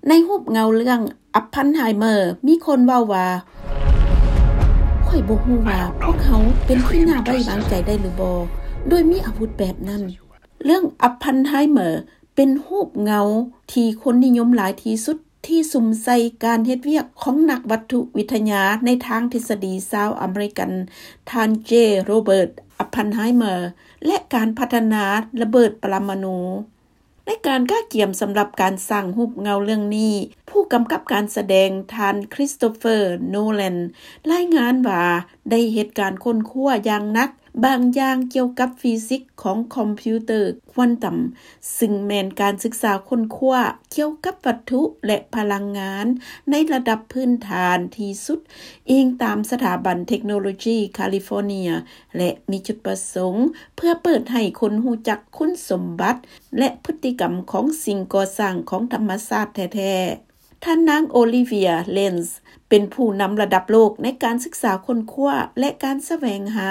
ໃນຮູບເງົາເລື່ອງ Oppenheimer ມີຄົນເວົ້າວ່າ ຂ້ອຍບໍ່ຮູ້ວ່າພວກເຮົາເປັນທີ່ໜ້າໄວ້ວາງໃຈໄດ້ຫຼືບໍ່ ໂດຍມີອາວຸດແບບນັ້ນ. ເລື່ອງ Oppenheimer ເປັນຮູບເງົາທີ່ຄົນນິຍົມຫຼາຍທີ່ສຸດ ທີ່ສຸມໃສ່ການເຮັດວຽກຂອງນັກວັດຖຸວິທະຍາໃນທາງທິດສະດີຊາວອາເມລິກັນ ທ່ານ J Robert Oppenheimer ແລະ ການພັດທະນາລະເບີດປະລະມານູ. ໃນການກະກຽມສຳລັບການສ້າງຮູບເງົາເລື່ອງນີ້, ຜູ້ກຳກັບການສະແດງ ທ່ານ Christopher Nolan ລາຍງານວ່າໄດ້ເຮັດການຄົ້ນຄວ້າຢ່າງໜັກບາງຢ່າງກ່ຽວກັບຟີຊິກຂອງຄອມພິວເຕີຄວານຕຳ, ຊຶ່ງແມ່ນການສຶກສາຄົ້ນຄວ້າກ່ຽວກັບວັດຖຸ ແລະ ພະລັງງານໃນລະດັບພື້ນຖານທີ່ສຸດ, ອີງຕາມສະຖາບັນເທັກໂນໂລຈີຄາລິຟໍເນຍ ແລະ ມີຈຸດປະສົງເພື່ອເປີດໃຫ້ຄົນຮູ້ຈັກຄຸນສົມບັດ ແລະ ພຶດຕິກຳຂອງສິ່ງກໍ່ສ້າງຂອງທຳມະຊາດແທ້ໆ. ທ່ານນາງ Olivia Lenz ເປັນຜູ້ນຳລະດັບໂລກໃນການສຶກສາຄົ້ນຄວ້າ ແລະ ການສະແຫວງຫາ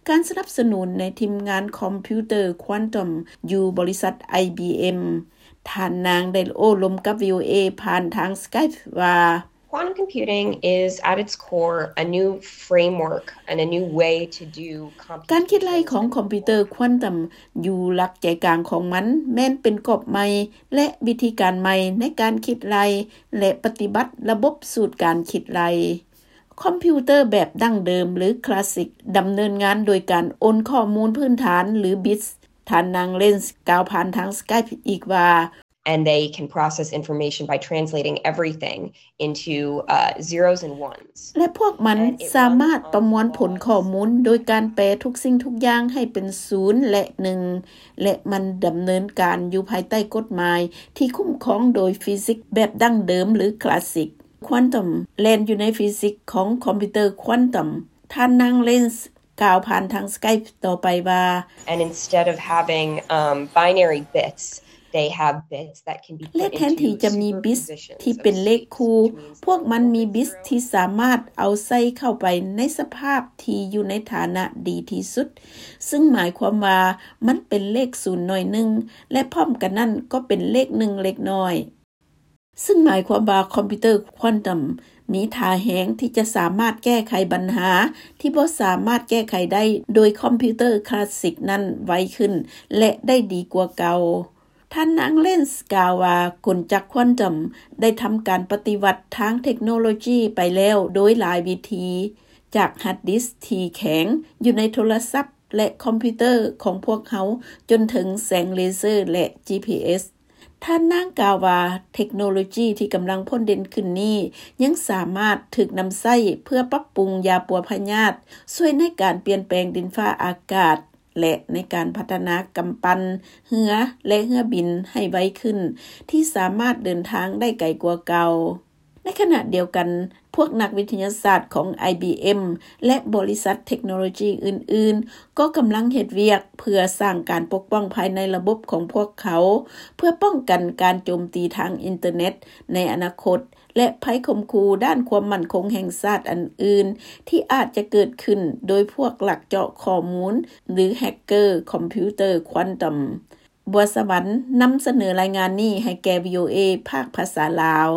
ການສະໜັບສະໜູນໃນທີມງານຄອມພິວເຕີຄວານຕຳຢູ່ບໍລິສັດ IBM. ທ່ານນາງໄດ້ໂອ້ລົມກັບ VOA ຜ່ານທາງ Skype ວ່າ Quantum computing is at its core a new framework and a new way to do computation. ການຄິດໄລ່ຂອງຄອມພິວເຕີຄວານຕຳຢູ່ຫຼັກໃຈກາງຂອງມັນແມ່ນເປັນກອບໃໝ່ ແລະ ວິທີການໃໝ່ໃນການຄິດໄລ່ ແລະ ປະຕິບັດລະບົບສູດການຄິດໄລ່. ຄອມພິວເຕີແບບດັ້ງເດີມ ຫຼື ຄລາສສິກ ດຳເນີນງານໂດຍການໂອນຂໍ້ມູນພື້ນຖານ ຫຼື ບິດ. ທ່ານນາງ Lenz ກ່າວຜ່ານທາງ Skype ອີກວ່າ And they can process information by translating everything into, uh, zeros and ones. ແລະ ພວກມັນສາມາດປະມວນຜົນຂໍ້ມູນໂດຍການແປທຸກສິ່ງທຸກຢ່າງໃຫ້ເປັນສູນ ແລະ ໜຶ່ງ ແລະ ມັນດຳເນີນການຢູ່ພາຍໃຕ້ກົດໝາຍທີ່ຄຸ້ມຄອງໂດຍຟີຊິກແບບດັ້ງເດີມ ຫຼື ຄລາສສິກ. ຄວານຕຳແລ່ນຢູ່ໃນຟີຊິກຂອງຄອມພິວເຕີຄວານຕຳ. ທ່ານນາງ Lenz ກ່າວຜ່ານທາງ Skype ຕໍ່ໄປວ່າ And instead of having, um, binary bits, they have bits that can be put into superpositions of states, which means that ແລະ ແທນທີ່ຈະມີບິດທີ່ເປັນເລກຄູ່, ພວກມັນມີບິດທີ່ສາມາດເອົາໃສ່ເຂົ້າໄປໃນສະພາບທີ່ຢູ່ໃນຖານະດີທີ່ສຸດ, ຊຶ່ງໝາຍຄວາມວ່າມັນເປັນເລກສູນໜ້ອຍໜຶ່ງ ແລະ ພ້ອມກັນນັ້ນກໍເປັນເລກໜຶ່ງເລັກນ້ອຍ. ຊຶ່ງໝາຍຄວາມວ່າຄອມພິວເຕີຄວານຕຳມີທ່າແຮງທີ່ຈະສາມາດແກ້ໄຂບັນຫາທີ່ບໍ່ສາມາດແກ້ໄຂໄດ້ໂດຍຄອມພິວເຕີຄລາສສິກນັ້ນໄວຂຶ້ນ ແລະ ໄດ້ດີກວ່າເກົ່າ. ທ່ານນາງ Lenz ກ່າວວ່າ ກົນຈັກຄວານຕຳໄດ້ທຳການປະຕິວັດທາງເທັກໂນໂລຈີໄປແລ້ວໂດຍຫຼາຍວິທີ, ຈາກຮາດດິສທີ່ແຂງຢູ່ໃນໂທລະສັບ ແລະ ຄອມພິວເຕີຂອງພວກເຮົາ ຈົນເຖິງແສງເລເຊີ ແລະ ຈີພີເອສ. ທ່ານນາງກ່າວວ່າ ເທັກໂນໂລຈີທີ່ກຳລັງພົ້ນເດັ່ນຂຶ້ນນີ້ ຍັງສາມາດຖືກນຳໃຊ້ເພື່ອປັບປຸງຢາປົວພະຍາດ, ຊ່ວຍໃນການປ່ຽນແປງດິນຟ້າອາກາດ ແລະ ໃນການພັດທະນາກຳປັ່ນເຮືອ ແລະ ເຮືອບິນໃຫ້ໄວຂຶ້ນ, ທີ່ສາມາດເດີນທາງໄດ້ໄກກວ່າເກົ່າ. ໃນຂະນະດຽວກັນ, ພວກນັກວິທະຍາສາດຂອງ IBM ແລະ ບໍລິສັດເທັກໂນໂລຈີອື່ນໆ ກໍກຳລັງເຮັດວຽກເພື່ອສ້າງການປົກປ້ອງພາຍໃນລະບົບຂອງພວກເຂົາ ເພື່ອປ້ອງກັນການໂຈມຕີທາງອິນເຕີເນັດໃນອະນາຄົດ ແລະ ໄພຂົ່ມຂູ່ດ້ານຄວາມໝັ້ນຄົງແຫ່ງຊາດອັນອື່ນ ທີ່ອາດຈະເກີດຂຶ້ນໂດຍພວກລັກເຈາະຂໍ້ມູນ ຫຼື ແຮັກເກີຄອມພິວເຕີຄວານຕຳ. ບົວສະຫວັນນຳສະເໜີລາຍງານນີ້ໃຫ້ແກ່ VOA ພາກພາສາລາວ.